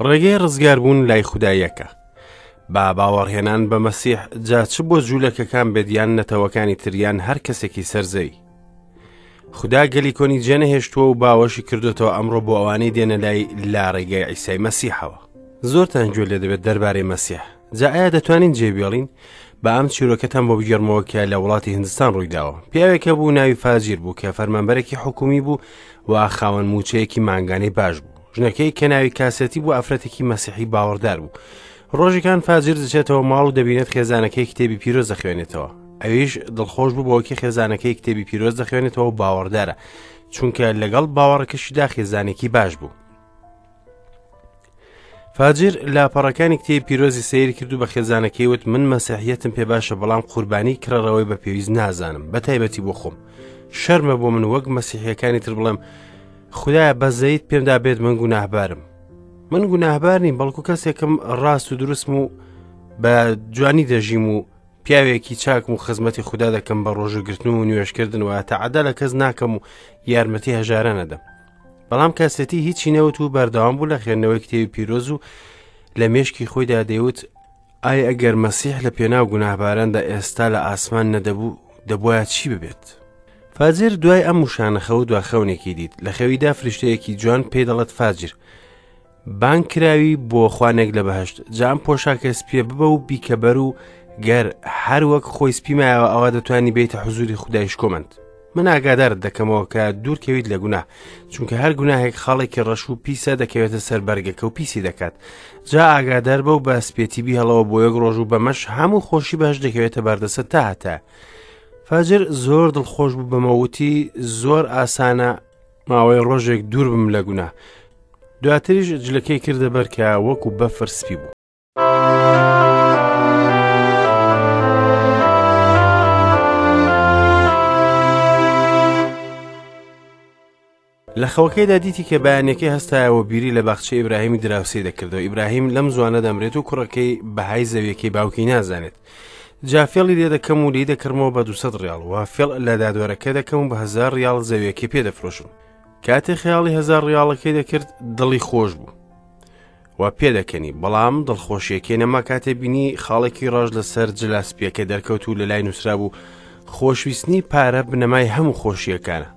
ڕێگەی ڕزگاربوون لای خودا یەکە. با باوەڕهێنان بە مەسیح جا چ بۆ جوولەکەکان بێت یان نەتەوەکانی تر یان هەر کەسێکی سەر زەوی. خودا گەلی کۆنی جێنەهێشتووە و باوەشی کردوتەوە ئەمڕۆ بۆ ئەوانەی دێنە لای لا ڕێگەی عیسای مەسیحەوە. زۆرتان گوێ لێ دەبێت دەربارەی مەسیح. جا ئایا دەتوانین جێ بێڵین؟ با ئەم چیرۆکەتان بۆ بگێڕمەوە کە لە وڵاتی هندستان ڕوویداوە. پیاوێک هەبوو ناوی فاجیر بوو کە فەرمانبەرێکی حکومی بوو و خاوەن موچەیەکی مانگانەی باش بوو. ژنەکەی کە ناوی کاسێتی بوو ئافرەتێکی مەسیحی باوەڕدار بوو. ڕۆژێکان فاجیر دەچێتەوە ماڵ و دەبینێت خێزانەکەی کتێبی پیرۆز دەخوێنێتەوە. ئەویش دڵخۆش بوو بەوەی خێزانەکەی کتێبی پیرۆز دەخوێنێتەوە و باوەڕدارە، چونکە لەگەڵ باوەڕەکەشیدا خێزانێکی باش بوو. فاجر لاپەڕەکانی کتێبی پیرۆزی سەیر کرد و بە خێزانەکەی وت من مەسیحیەتم پێ باشە بەڵام قوربانی کڕەرەوەی بە پێویست نازانم بە تایبەتی بۆ خۆم شەرمە بۆ من وەک مەسیحیەکانی تر بڵێم خدایە بەزەیت پێمدا بێت من گوناهبارم من گوناهبار نیم بەڵکو کەسێکم ڕاست و دروستم و بە جوانی دەژیم و پیاوێکی چاکم و خزمەتی خودا دەکەم بە ڕۆژوگرتن و نوێشکردن و تەعەدا لە کەس ناکەم و یارمەتی هەژارە نەدەم بەڵام کەسێتی هیچی نەوت و بەردەوام بوو لە خوێندنەوەی کتێبی پیرۆز و لە مێشکی خۆیدا دەیوت ئای ئەگەر مەسیح لە پێناو گوناهباراندا ئێستا لە ئاسمان نەدەبوو دەبواە چی ببێت فاجر دوای ئەم وشانە خەوت دوا خەونێکی دیت لە خەویدا فریشتەیەکی جوان پێی دەڵێت فاجر بانگ کراوی بۆ خوانێک لە بەهشت جا ئەم پۆشاکە سپیە ببە و بیکە بەر و گەر هەر وەک خۆی سپی مایەوە ئەوە دەتوانی بیتە حزوری خودای شکۆمەند من ئاگادارت دەکەمەوە کە دوورکەویت لە گوناه چونکە هەر گوناهێک خاڵێکی ڕەش و پیسە دەکەوێتە سەر بەرگەکە و پیسی دەکات جا ئاگادار بە و بە سپێتی بیهڵەوە بۆ یەک ڕۆژ و بەمەش هەموو خۆشی بەهشت دەکەوێتە بەردەست تا هەتا فاجر زۆر دڵخۆش بوو بەمەوتی زۆر ئاسانە ماوەی ڕۆژێک دوور بم لە گوناه دواتریش جلەکەی کردە بەر کە وەکو بەفر سپی بوو. لە خەوەکەیدا دیتی کە بەیانەکەی هەستایەوە بیری لە باخچەی ئیبراهیمی دراوسێی دەکردەوە ئیبراهیم لەم زوانە دەمرێت و کوڕەکەی بەهای زەویەکەی باوکی نازانێت جا فێڵی لێ دەکەم و لی دەکڕمەوە بە 200 ڕیاڵ و فێڵ لە دادوەرەکە دەکەم و بە 1000 ڕیاڵ زەویەکەی پێ دەفرۆشم کاتێ خەیاڵی هەزار ڕیاڵەکەی دەکرد دڵی خۆش بوو و پێدەکەنی بەڵام دڵخۆشیەکەی نەما کاتێ بینی خاڵێکی ڕەش لەسەر جلا سپیەکە دەرکەوت و لە لای نووسرا بوو خۆشویستنی پارە بنەمای هەموو خۆشیەکانە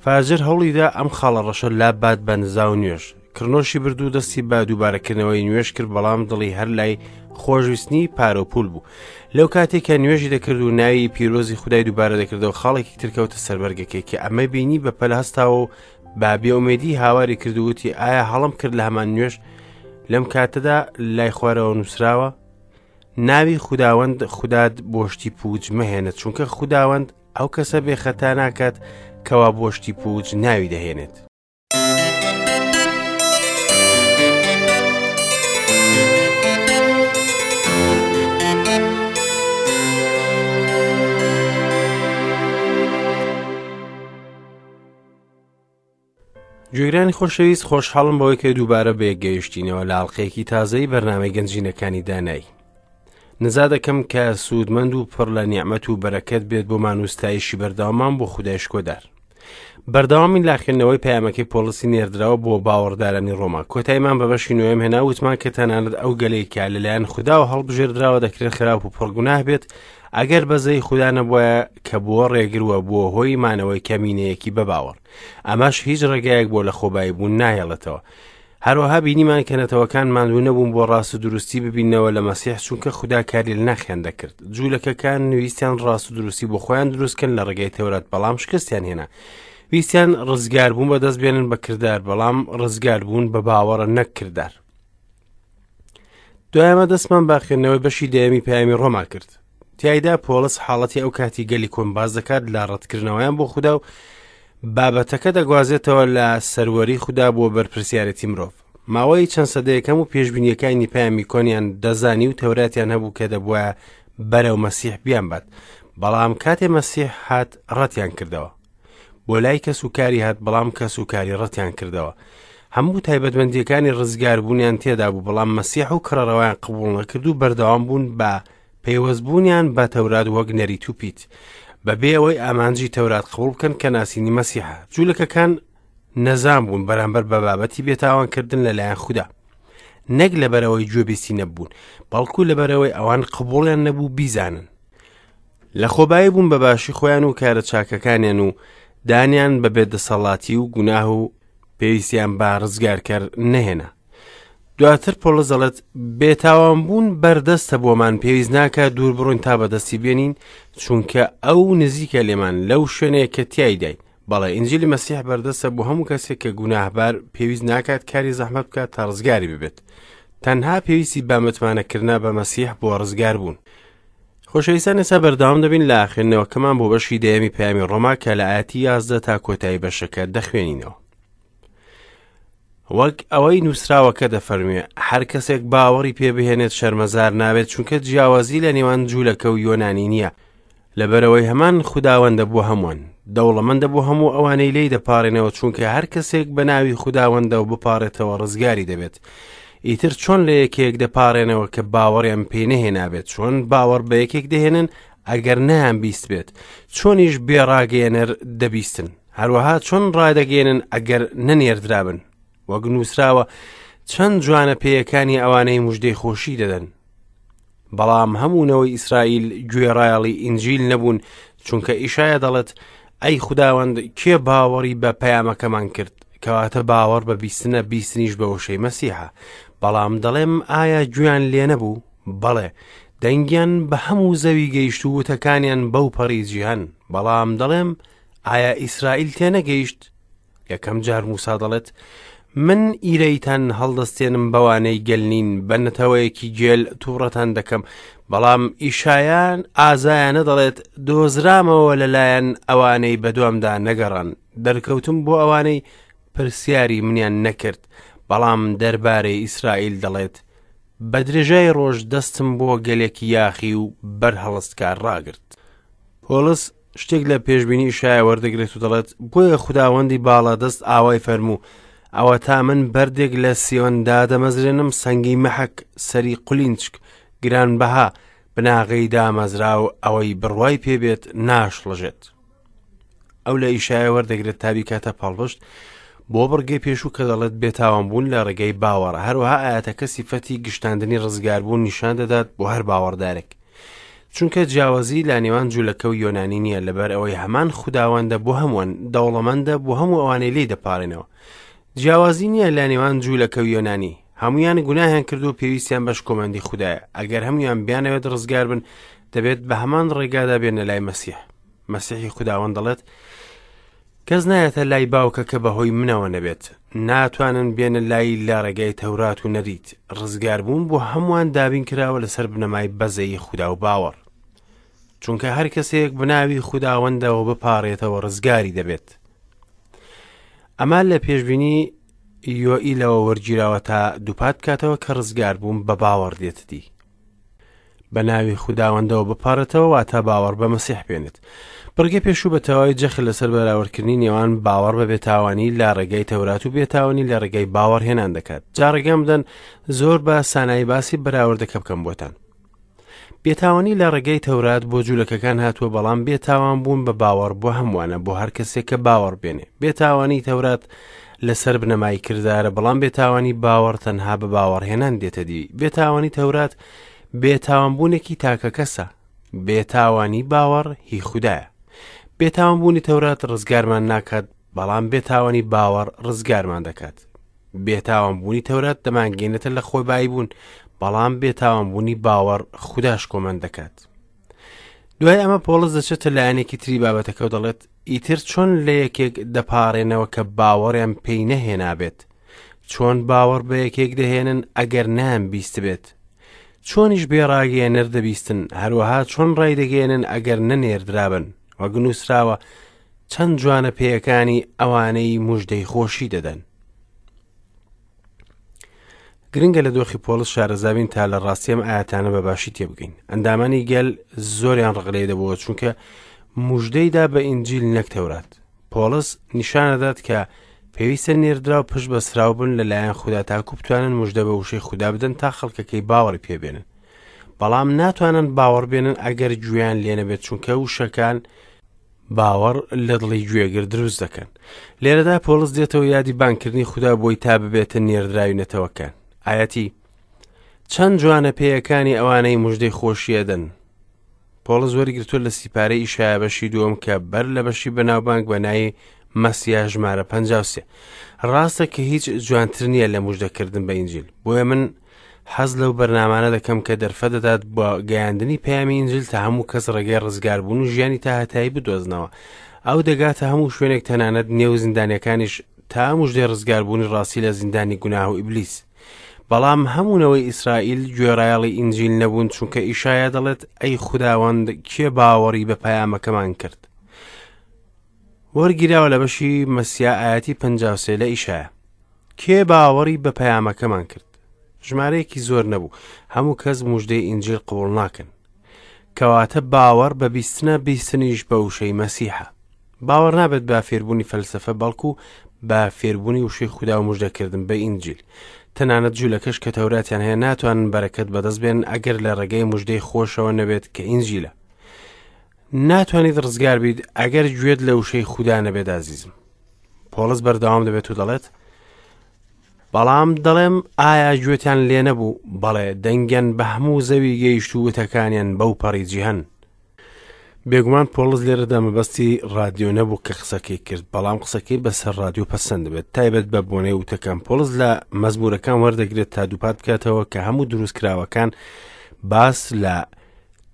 فاجر هەوڵیدا ئەم خاڵە ڕەشە لابات بە نزا و نوێژ کڕنۆشی برد و دەستی بە دووبارەکردنەوەی نوێژ کرد بەڵام دڵی هەر لای خۆشویستنی پارە و پول بوو لەو کاتێک کە نوێژی دەکرد و ناوی پیرۆزی خودای دووبارە دەکردەوە خاڵێکی تر کەوتە سەر بەرگەکەی کە ئەمە بینی بە پەل هەستاوە و با بێئومێدی هاواری کرد و وتی ئایا هەڵم کرد لە هەمان نوێژ لەم کاتەدا لای خوارەوە نووسراوە ناوی خوداوەند خودات بۆ شتی پووچ مەهێنە چونکە خوداوەند ئەو کەسە بێ خەتا ناکات کەوا بۆ شتی پووچ ناوی دەهێنێت. گوێگرانی خۆشەویست خۆشحاڵم بەوەی کە دووبارە بەیەک گەیشتینەوە لە ئاڵلقەیەکی تازەی بەرنامەی گەنجینەکانی دانایی نزا دەکەم کە سوودمەند و پڕ لە نیعممەت و بەرەکەت بێت بۆمان و ستایشی بەردەوامان بۆ خودای شکۆدار بەردەوامی لە خوێندنەوەی پەیامەکەی پۆڵسی نێردراوە بۆ باوەڕدارانی ڕۆما کۆتاییمان بە بەشی نوێم هێنا وتمان کە تەنانەت ئەو گەلەی کە لەلایەن خوداوە هەڵبژێردراوە دەکرێت خراپ و پڕگوناه بێت ئەگەر بەزەی خودا نەبوایە کە بووە ڕێگر و بووە هۆی مانەوەی کەمینەیەکی بەباوەڕ ئەمەش هیچ ڕێگایەک بۆ لە خۆبایی بوون ناهێڵێتەوە هەروەها بینیمان کە نەتەوەکان ماندوو نەبوون بۆ ڕاست و دروستی ببینەوە لە مەسیح چونکە خودا کاری لە ناخیان دەکرد جوولەکەکان ویستیان ڕاست و دروستی بۆ خۆیان دروستکەن لە ڕێگەی تەورات بەڵام شکستیان هێنا ویستیان ڕزگاربوون بەدەست بێنن بە کردار بەڵام ڕزگاربوون بە باوەڕە نەک کردار دوای ئەمە دەستمان بە خوێندنەوەی بەشی دەیەمی پەیامی ڕۆما کرد تیایدا پۆڵس حاڵەتی ئەو کاتی گەلی کۆن باز دەکات لە ڕەتکردنەوەیان بۆ خودا و بابەتەکە دەگوازێتەوە لە سەروەری خودا بۆ بەرپرسیارەتی مرۆڤ ماوەی چەند سەدەیەکەم و پێشبینیەکانی پەیامی کۆنیان دەزانی و تەوراتیان هەبوو کە دەبووە بەرەو مەسیح بیانبات بەڵام کاتێ مەسیح هات ڕەتیان کردەوە بۆ لای کەس و کاری هات بەڵام کەس و کاری ڕەتیان کردەوە هەموو تایبەتمەندیەکانی ڕزگاربوونیان تێدا بوو بەڵام مەسیح و کڕەرەوەیان قبوڵ نەکرد و بەردەوام بوون بە پەیوەستبوونیان بە تەورات وەک نەریت و پیت بەبێ ئەوەی ئامانجی تەورات قبوڵ بکەن کە ناسینی مەسیحە جوولەکەکان نەزان بوون بەرامبەر بە بابەتی بێتاوانکردن لەلایەن خودا. نەک لەبەرئەوەی گوێبیستی نەبوون، بەڵکو لەبەرئەوەی ئەوان قبوڵیان نەبوو بیزانن. لەخۆبایی بوون بە باشی خۆیان و کارە چاکەکانیان و دانیان بە بێدەسەڵاتی و گوناه و پێویستیان بە ڕزگارکەر نەهێنا. دواتر پۆڵس دەڵێت بێتاوان بوون بەردەستە بۆمان پێویست ناکات دوور بڕۆین تا بەدەستی بێنین چونکە ئەو نزیکە لێمان لەو شوێنەیە کە تیایداین بەڵێ ئینجیلی مەسیح بەردەستە بۆ هەموو کەسێک کە گوناهبار پێویست ناکات کاری زەحمەت بکات تا ڕزگاری ببێت تەنها پێویستی بە متمانەکردە بە مەسیح بۆ ڕزگار بوون خۆشەویستان ئێستا بەردەوام دەبین لە خوێندنەوەکەمان بۆ بەشی دەیەمی پەیامی ڕۆما کە لە ئاەتی 11 تا کۆتایی بەشەکە دەخوێنینەوە وەک ئەوەی نووسراوەکە دەفەرموێ هەر کەسێک باوەڕی پێ بهێنێت شەرمەزار نابێت چونکە جیاوازی لە نێوان جوولەکە و یۆنانی نییە لەبەرئەوەی هەمان خوداوەندە بۆ هەمووان، دەوڵەمەندە بۆ هەموو ئەوانەی لێی دەپاڕێنەوە، چونکە هەر کەسێک بە ناوی خوداوەندەوە بپاڕێتەوە ڕزگاری دەبێت. ئیتر چۆن لە یەکێک دەپاڕێنەوە کە باوەڕیان پێی نەهێنابێت؟ چۆن باوەڕ بە یەکێک دەهێنن ئەگەر نەیان بیستبێت؟ چۆنیش بێ ڕاگەیەنەر دەبیستن؟ هەروەها چۆن ڕادەگەیەنن ئەگەر نەنێردرابن؟ وەک نووسراوە چەند جوانە پێیەکانی ئەوانەی مژدەی خۆشی دەدەن. بەڵام هەموو نەوەی ئیسرائیل گوێڕایەڵی ئینجیل نەبوون چونکە ئیشایا دەڵێت ئەی خوداوەند کێ باوەڕی بە پەیامەکەمان کرد کەواتە باوەڕ بە بیستنە بیستنیش بە وشەی مەسیحە بەڵام دەڵێم ئایا گوێیان لێ نەبوو بەڵێ دەنگیان بە هەموو زەوی گەیشت و وتەکانیان بەو پەڕی جیهان بەڵام دەڵێم ئایا ئیسرائیل تێنەگەیشت یەکەم جار موسا دەڵێت من ئیرەیتان هەڵدەستێنم بەوانەی گەل نین بە نەتەوەیەکی گێل تووڕەتان دەکەم بەڵام ئیشایان ئازایانە دەڵێت دۆزرامەوە لەلایەن ئەوانەی بەدوامدا نەگەڕان دەرکەوتم بۆ ئەوانەی پرسیاری منیان نەکرد بەڵام دەربارەی ئیسرائیل دەڵێت بە درێژای ڕۆژ دەستم بۆ گەلێکی یاخی و بەرهەڵستکار ڕاگرت. پۆڵس شتێک لە پێشبینی ئیشایا وەردەگرێت و دەڵێت بۆیە خوداوەندی باڵادەست ئاوای فەرموو ئەوەتا من بەردێک لە سیۆن دادەمەزرێنم سەنگی مەحەک سەری قولینچک گرانبەها بناغەی دامەزراو ئەوەی بڕوای پێبێت ناشڵەژێت ئەو لە ئیشایە وەردەگرێت تا بیکاتە پاڵپشت بۆ بڕگەی پێشوو کە دەڵێت بێتاوان بوون لە ڕێگەی باوەڕە هەروەها ئاەتەکە سیفەتی گشتاندنی ڕزگاربوون نیشان دەدات بۆ هەر باوەڕدارێک چونکە جیاوازی لە نێوان جوولەکە و یۆنانی نییە لەبەر ئەوەی هەمان خوداوەندە بۆ هەمووان دەوڵەمەندە بۆ هەموو ئەوانەی لی دەپارێنەوە جیاوازی نییە لە نێوان جوولەکە و یۆنانی هەمویان گوناهیان کرد و پێویستیان بە شکۆمەندی خودایە ئەگەر هەمویان بیانەوێت ڕزگار بن دەبێت بە هەمان ڕێگادا بێنە لای مەسیح مەسیحی خوداوەند دەڵێت کەس نایەتە لای باوکە کە بەهۆی منەوە نەبێت ناتوانن بێنە لای لە ڕێگای تەورات و نەریت ڕزگاربوون بۆ هەمووان دابین کراوە لەسەر بنەمای بەزەیی خودا و باوەڕ چونکە هەر کەسێک بناوی خوداوەندەوە بپارێتەوە ڕزگاری دەبێت ئەمە لە پێشبینی یۆئیلەوە وەرگیراوە تا دووپات بکاتەوە کە ڕزگاربوون بە باوەڕ دێتە دی بە ناوی خوداوەندەوە بپارێتەوە واتە باوەڕ بە مەسیح بێنێت. بڕگەی پێشوو بە تەواوی جەخت لەسەر بەراوردکردنی نێوان باوەڕ بە بێتاوانی لە ڕێگای تەورات و بێتاوانی لە ڕێگای باوەڕهێنان دەکات. جا ڕێگەم بدەن زۆر بە سانایی باسی بەراوردەکە بکەم بۆتان. بێتاوانی لە ڕێگەی تەورات بۆ جوولەکەکان هاتووە بەڵام بێتاوان بوون بە باوەڕ بۆ هەمووانە بۆ هەر کەسێک کە باوەڕ بێنێ. بێتاوانی تەورات لەسەر بنەمای کردارە بەڵام بێتاوانی باوەڕ تەنها بە باوەڕهێنان دێتە دی بێتاوانی تەورات بێتاوانبوونێکی تاکەکەسە بێتاوانی باوەڕ هی خودایە بێتاوانبوونی تەورات ڕزگارمان ناکات بەڵام بێتاوانی باوەڕ ڕزگارمان دەکات بێتاوانبوونی تەورات دەمانگەینێتە لە خۆی بایی بوون بەڵام بێتاوانبوونی باوەڕ خوداش کۆمەند دەکات دوای ئەمە پۆڵس دەچێتە لایەنێکی تری بابەتەکە و دەڵێت ئیتر چۆن لە یەکێک دەپارێنەوە کە باوەڕیان پێی نەهێنابێت چۆن باوەڕ بە یەکێک دەهێنن ئەگەر نام بیستبێت چۆنیش بێ ڕاگەیەنەر دەبیستن هەروەها چۆن ڕایدەگەیەنن ئەگەر نەنێردرابن وەک نووسراوە چەند جوانە پێیەکانی ئەوانەی مژدەی خۆشی دەدەن گرنگە لە دۆخی پۆڵس شارەزابین تا لە ڕاستی ئەم ئاەتانە بە باشی تێبگەین ئەندامانی گەل زۆریان ڕق لێ دەبووە چونکە مژدەیدا بە ئینجیل نەک تەورات پۆڵس نیشانەدات کە پێویستە نێردراو پشت بەسراو بن لەلایەن خودا تاکو بتوانن مژدە بە وشەی خودا بدەن تا خەڵکەکەی باوەڕی پێبێنن بەڵام ناتوانن باوەڕ بێنن ئەگەر گوێیان لێنەبێت چونکە وشەکان باوەڕ لە دڵی گوێگر دروست دەکەن. لێرەدا پۆڵس دێتەوە یادی بانگکردنی خودا بۆی تا ببێتە نێردراوی نەتەوەکان. ئایەتی. چەند جوانە پێیەکانی ئەوانەی مژدەی خۆشی ئەدەن. پۆڵس وەریگرتووە لە سیپارەی ئیشایا بەشی دووەم کە بەر لە بەشی بەناوبانگ بە ناوی مەسیا ژمارە 53. ڕاستە کە هیچ جوانتر نییە لە مژدەکردن بە ئینجیل. بۆیە من حەز لەو بەرنامانە دەکەم کە دەرفەت دەدات بۆ گەیاندنی پەیامی ئینجیل تا هەموو کەس ڕێگەی ڕزگاربوون و ژیانی تا هەتایی بدۆزنەوە. ئەو دەگاتە هەموو شوێنێک تەنانەت نێو زیندانیەکانیش تا مژدەی ڕزگاربوونی ڕاستی لە زیندانی گوناه و ئیبلیس. بەڵام هەموو نەوەی ئیسرائیل گوێڕایەڵی ئینجیل نەبوون چونکە ئیشایا دەڵێت ئەی خوداوەند کێ باوەڕی بە پەیامەکەمان کرد وەرگیراوە لە بەشی مەسیا ئاەتی 53 لە ئیشایا کێ باوەڕی بە پەیامەکەمان کرد ژمارەیەکی زۆر نەبوو هەموو کەس مژدەی ئینجیل قبوڵ ناکەن کەواتە باوەڕ بە بیستنە بیستنیش بە وشەی مەسیحە باوەڕ نابێت بە فێربوونی فەلسەفە بەڵکو بە فێربوونی وشەی خودا و مژدەکردن بە ئینجیل. تەنانەت جوولەکەش کە تەوراتیان هەیە ناتوانن بەرەکەت بەدەست بێنن ئەگەر لە ڕێگەی مژدەی خۆشەوە نەبێت کە ئینجیلە. ناتوانیت ڕزگار بیت ئەگەر گوێت لە وشەی خودا نەبێت ئازیزم. پۆڵس بەردەوام دەبێت و دەڵێت بەڵام دەڵێم ئایا گوێتان لێ نەبوو؟ بەڵێ دەنگیان بە هەموو زەوی گەیشت و وتەکانیان بەو پەڕی جیهان. بێگومان پۆڵس لێرەدا مەبەستی ڕادیۆ نەبوو کە قسەکەی کرد بەڵام قسەکەی بەسەر ڕادیۆ پەسەند دەبێت تایبەت بە بۆنەی وتەکان پۆڵس لە مەزمورەکان وەردەگرێت تا دووپات بکاتەوە کە هەموو دروستکراوەکان باس لە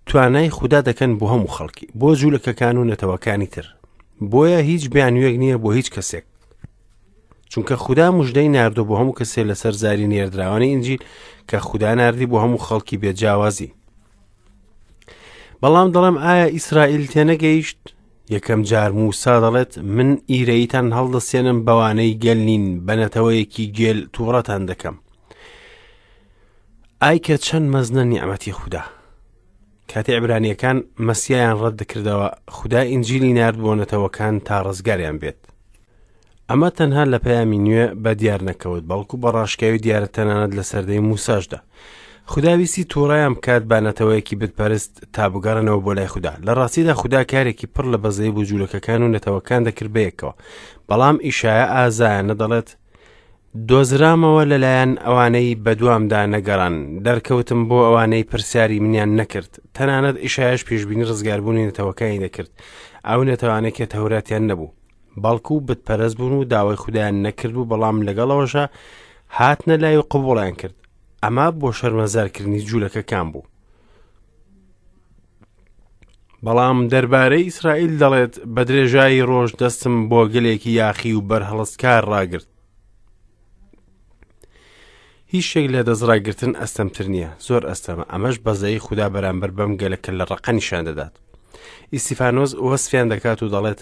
توانای خودا دەکەن بۆ هەموو خەڵکی بۆ جوولەکەکان و نەتەوەکانی تر بۆیە هیچ بیانوێک نییە بۆ هیچ کەسێک چونکە خودا مژدەی ناردۆ بۆ هەموو کەسێ لەسەر زاری نێردراوانی ئینجیل کە خودا ناردی بۆ هەموو خەڵکی بێجیاوازی بەڵام دەڵێم ئایا ئیسرائیل تێنەگەیشت؟ یەکەم جار موسا دەڵێت من ئیرەیتان هەڵدەسێنم بەوانەی گەل نین بە نەتەوەیەکی گێل تووڕەتان دەکەم. ئای کە چەند مەزنە نیعمەتی خودا. کاتێ عبرانیەکان مەسیایان ڕەت دەکردەوە خودا ئینجیلی نارد بۆ نەتەوەکان تا ڕزگاریان بێت. ئەمە تەنها لە پەیامی نوێ بە دیار نەکەوت بەڵکو بە ڕاشکاوی دیارە تەنانەت لە سەردەی موساشدا خودا ویستی تووڕەیان بکات بە نەتەوەیەکی بتپەرست تا بگەڕێنەوە بۆ لای خودا لە ڕاستیدا خودا کارێکی پڕ لە بەزەی بۆ جوولەکەکان و نەتەوەکان دەکرد بەیەکەوە بەڵام ئیشایە ئازایانە دەڵێت دۆزرامەوە لەلایەن ئەوانەی بەدوامدا نەگەڕان دەرکەوتم بۆ ئەوانەی پرسیاری منیان نەکرد تەنانەت ئیشایش پێشبینی ڕزگاربوونی نەتەوەکانی دەکرد ئەو نەتەوانەی کە تەوراتیان نەبوو بەڵکو بتپەرست بوون و داوای خودایان نەکردبوو بەڵام لەگەڵەوەشا هاتنە لای و قبوڵیان کرد ئەمە بۆ شەرمەزارکردنی جوولەکەکان بوو بەڵام دەربارەی ئیسرائیل دەڵێت بە درێژایی ڕۆژ دەستم بۆ گەلێکی یاخی و بەرهەڵستکار ڕاگرت هیچ شتێک لە دەستڕاگرتن ئەستەمتر نییە زۆر ئەستەمە ئەمەش بەزەی خودا بەرامبەر بەم گەلە کە لە ڕقە نیشان دەدات ئیسیفانۆس وەسفیان دەکات و دەڵێت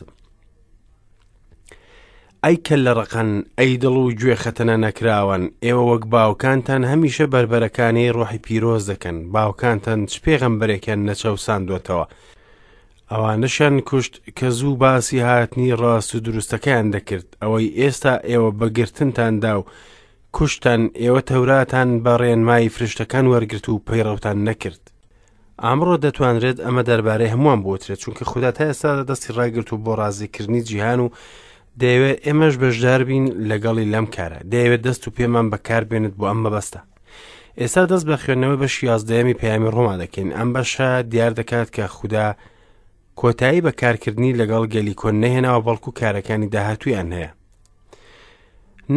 ئەی کە لە ڕقن ئەی دڵ و گوێ خەتەنە نەکراوان ئێوە وەک باوکانتان هەمیشە بەربەرەکانی ڕۆحی پیرۆز دەکەن باوکانتان چ پێغەمبەرێکیان نەچەوساندوەتەوە ئەوانەشیان کوشت کە زوو باسی هاتنی ڕاست و دروستەکەیان دەکرد، ئەوەی ئێستا ئێوە بە گرتنتان دا و کوشتتان، ئێوە تەوراتان بە ڕێنمایی فریشتەکان وەرگرت و پەیڕەوتان نەکرد. ئەمڕۆ دەتوانرێت ئەمە دەربارەی هەمووان بوترێت، چونکە خودا تا ئێستا دەستی ڕاگرت و بۆ ڕازیکردنی جیهان و دەیەوێت ئێمەش بەشدار بین لەگەڵی لەم کارە، دەیەوێت دەست و پێمان بەکاربێنێت بۆ ئەم مەبەستە. ئێستا دەست بە خوێندنەوەی بەشی یازدەیەمی پەیامی ڕۆما دەکەین ئەم بەشە دیار دەکات کە خودا کۆتایی بە کارکردنی لەگەڵ گەلی کۆن نەهێناوە بەڵکو کارەکانی داهاتوویان هەیە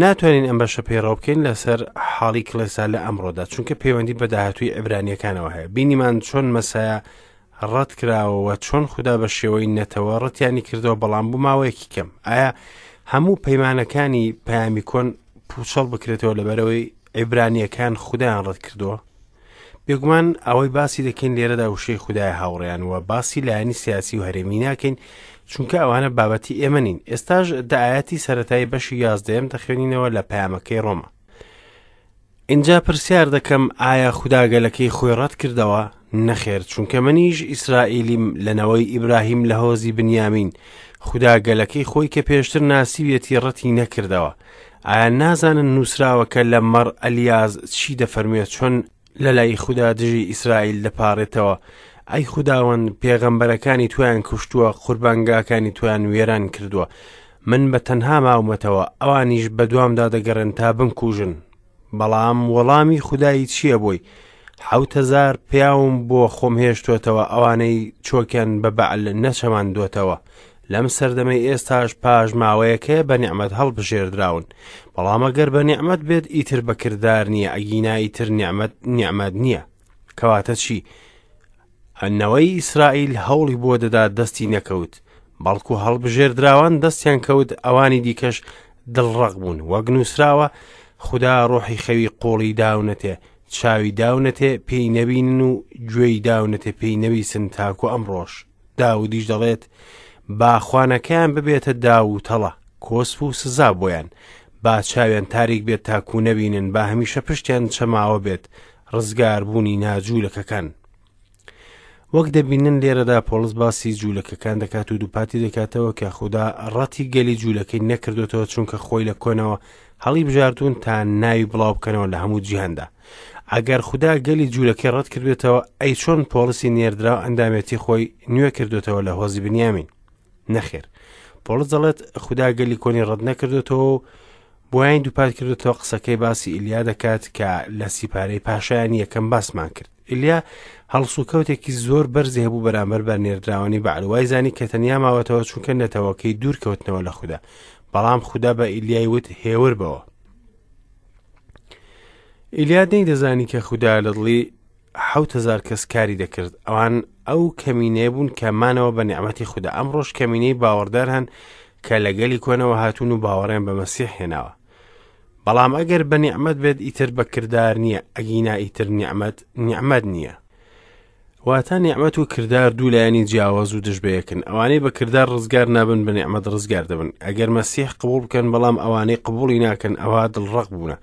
ناتوانین ئەم بەشە پەیڕەو بکەین لەسەر حاڵی کڵێسا لە ئەمڕۆدا چونکە پەیوەندی بە داهاتووی عبرانیەکانەوە هەیە بینیمان چۆن مەسایە ڕەت کراوەوە چۆن خودا بە شێوەی نەتەوە ڕەتیانی کردەوە بەڵام بۆ ماوەیەکی کەم ئایا هەموو پەیمانەکانی پەیامی کۆن پوچەڵ بکرێتەوە لەبەرەوەی عیبرانیەکان خودایان ڕەت کردووە بێگومان ئەوەی باسی دەکەین لێرەدا وشەی خودای هاوڕێیان و باسی لایەنی سیاسی و هەرێمی ناکەین چونکە ئەوانە بابەتی ئێمە نین ئێستاش دە ئایەتی سەتایی بەشی یازدەیەم دەخوێنینەوە لە پەیامەکەی ڕۆما ئینجا پرسیار دەکەم ئایا خودا گەلەکەی خۆی ڕەت کردەوە؟ نەخێر، چونکە منیش ئیسرائیلیم لە نەوەی ئیبراهیم لە هۆزی بنیامین، خودا گەلەکەی خۆی کە پێشتر ناسیویەتی ڕەتی نەکردەوە. ئایا نازانن نووسراوە کە لە مەڕ ئەلیاز چی دەفەرموێ چۆن لە لای خودا دژی ئیسرائیل دەپاڕێتەوە، ئەی خوداوەند پێغەمبەرەکانی تۆیان کوشتووە، قوربانگاکانی تۆیان وێران کردووە، من بە تەنها ماومەتەوە، ئەوانیش بەدوامدا دەگەڕێن تا بمکوژن. بەڵام وەڵامی خودایی چییە بۆی؟ 7000 پیاوم بۆ خۆم هێشتۆتەوە ئەوانەی چۆکیان بە بەعل نەچەماندۆتەوە. لەم سەردەمەی ئێستاش پاش ماوەیەک هەیە بە نیعمەت هەڵبژێردراون. بەڵام ئەگەر بە نیعمەت بێت ئیتر بە کردار نییە، ئەگینا ئیتر نیعمەت نیعمەت نییە. کەواتە چی؟ نەوەی ئیسرائیل هەوڵی بۆ دەدا دەستی نەکەوت، بەڵکو هەڵبژێردراوان دەستیان کەوت، ئەوانی دیکەش دڵڕەق بوون. وەک نووسراوە، خودا ڕۆحی خەوی قوڵی داونەتێ، چاوی داونەتێ پێی نەبینن و گوێی داونەتێ پێی نەبیسن تاکو ئەمڕۆش. داودیش دەڵێت، با خوانەکەیان ببێتە داو و تەڵە، کۆسپ و سزا بۆیان، با چاویان تاریک بێت تاکو نەبینن، با هەمیشە پشتیان چەماوە بێت، ڕزگاربوونی ناجوولەکەکان. وەک دەبینن لێرەدا پۆڵس باسی جوولەکەکان دەکات و دووپاتی دەکاتەوە کە خودا ڕەتی گەلی جوولەکەی نەکردوتەوە چونکە خۆی لە کۆنەوە هەڵی بژاردوون تا ناوی بڵاو بکەنەوە لە هەموو جیهاندا. ئەگەر خودا گەلی جوولەکەی ڕەت کردوێتەوە ئەی چۆن پۆڵسی نێردراو ئەندامێتی خۆی نوێ کردوتەوە لە هۆزی بنیامین؟ نەخێر پۆڵس دەڵێت خودا گەلی کۆنی ڕەت نەکردوێتەوە و بۆیان دووپات کردوێتەوە قسەکەی باسی ئیلیا دەکات کە لە سیپارەی پاشایانی یەکەم باسمان کرد ئیلیا هەڵسوکەوتێکی زۆر بەرزی هەبوو بەرامبەر بە نێردراوانی بەعل وای زانی کە تەنیا ماوەتەوە چونکە نەتەوەکەی دوور کەوتنەوە لە خودا بەڵام خودا بە ئیلیای وت هێور بەوە ئیلیا نەیدەزانی کە خودا لە دڵی 7000 کەس کاری دەکرد ئەوان ئەو کەمینەیە بوون کە مانەوە بە نیعمەتی خودا ئەمڕۆش کەمینەی باوەڕدار هەن کە لە گەلی کۆنەوە هاتوون و باوەڕیان بە مەسیح هێناوە بەڵام ئەگەر بە نیعمەت بێت ئیتر بە کردار نییە ئەگینا ئیتر نیعمەت نیعمەت نییە واتە نیعمەت و کردار دوو لایەنی جیاواز و دژ بەیەکن ئەوانەی بە کردار ڕزگار نابن بە نیعمەت ڕزگار دەبن ئەگەر مەسیح قبوڵ بکەن بەڵام ئەوانەی قبوڵی ناکەن ئەوە دڵڕەق بوونە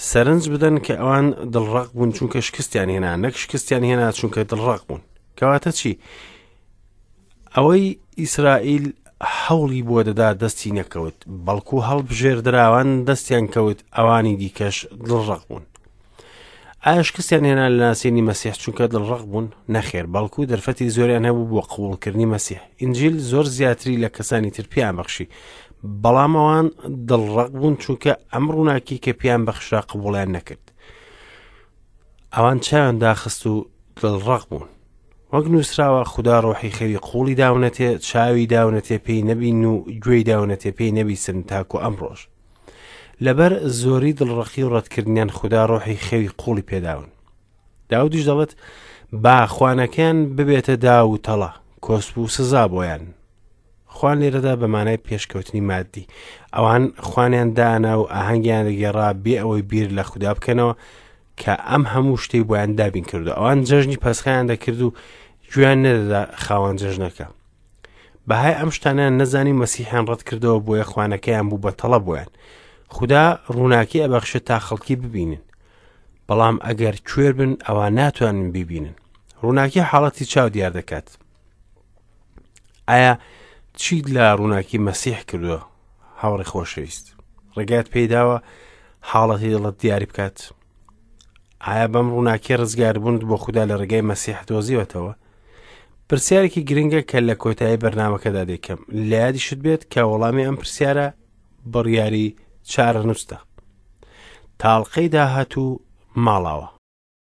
سەرنج بدەن کە ئەوان دڵڕەق بوون چونکە شکستیان هێنا نەک شکستیان هێنا چونکە دڵڕەق بوون کەواتە چی ئەوەی ئیسرائیل هەوڵی بۆ دەدا دەستی نەکەوت بەڵکو هەڵبژێردراوان دەستیان کەوت ئەوانی دیکەش دڵڕەق بوون ئایا شکستیان هێنا لە ناسینی مەسیح چونکە دڵڕەق بوون نەخێر بەڵکو دەرفەتی زۆریان هەبوو بۆ قبوڵکردنی مەسیح ئینجیل زۆر زیاتری لە کەسانی تر پێیان بەخشی بەڵام ئەوان دڵڕەق بوون چونکە ئەم ڕووناکی کە پێیان بەخشرا قبوڵیان نەکرد ئەوان چاویان داخست و دڵڕەق بوون وەک نووسراوە خودا ڕۆحی خەوی قوڵی داونەتێ چاوی داونەتێ پێی نەبین و گوێی داونەتێ پێی نەبیسن تاکو ئەمڕۆژ لەبەر زۆری دڵڕەقی و ڕەتکردنیان خودا ڕۆحی خەوی قوڵی پێداون داودیش دەڵێت با خوانەکەیان ببێتە داو و تەڵە کۆسپ و سزا بۆیان خوان لێرەدا بە مانای پێشکەوتنی مادی ئەوان خوانیان دانا و ئاهەنگیان دەگێڕا بێ ئەوەی بیر لە خودا بکەنەوە کە ئەم هەموو شتەی بۆیان دابین کردو ئەوان جەژنی پەسخیان دەکرد و گوێیان نەدەدا خاوەن جەژنەکە بەهای ئەم شتانیان نەزانی مەسیحیان ڕەت کردەوە بۆیە خوانەکەیان بوو بە تەڵە بۆیان خودا ڕووناکی ئەبەخشێت تا خەڵکی ببینن بەڵام ئەگەر کوێر بن ئەوە ناتوانن بیبینن ڕووناکی حاڵەتی چاو دیار دەکات ئایا چیت لە ڕووناکی مەسیح کردووە هاوڕێ خۆشەویست ڕێگات پێیداوە حاڵەتی دڵت دیاری بکات ئایا بەم ڕووناکی ڕزگاربوونت بۆ خودا لە ڕێگای مەسیح دۆزیوەتەوە پرسیارێکی گرنگە کە لە کۆتایی بەرنمەکەدا دەیکەم لە یادیشت بێت کە وەڵامی ئەم پرسیارە بڕیاری چارەنووستە تاڵقەی داهاتوو ماڵاوە.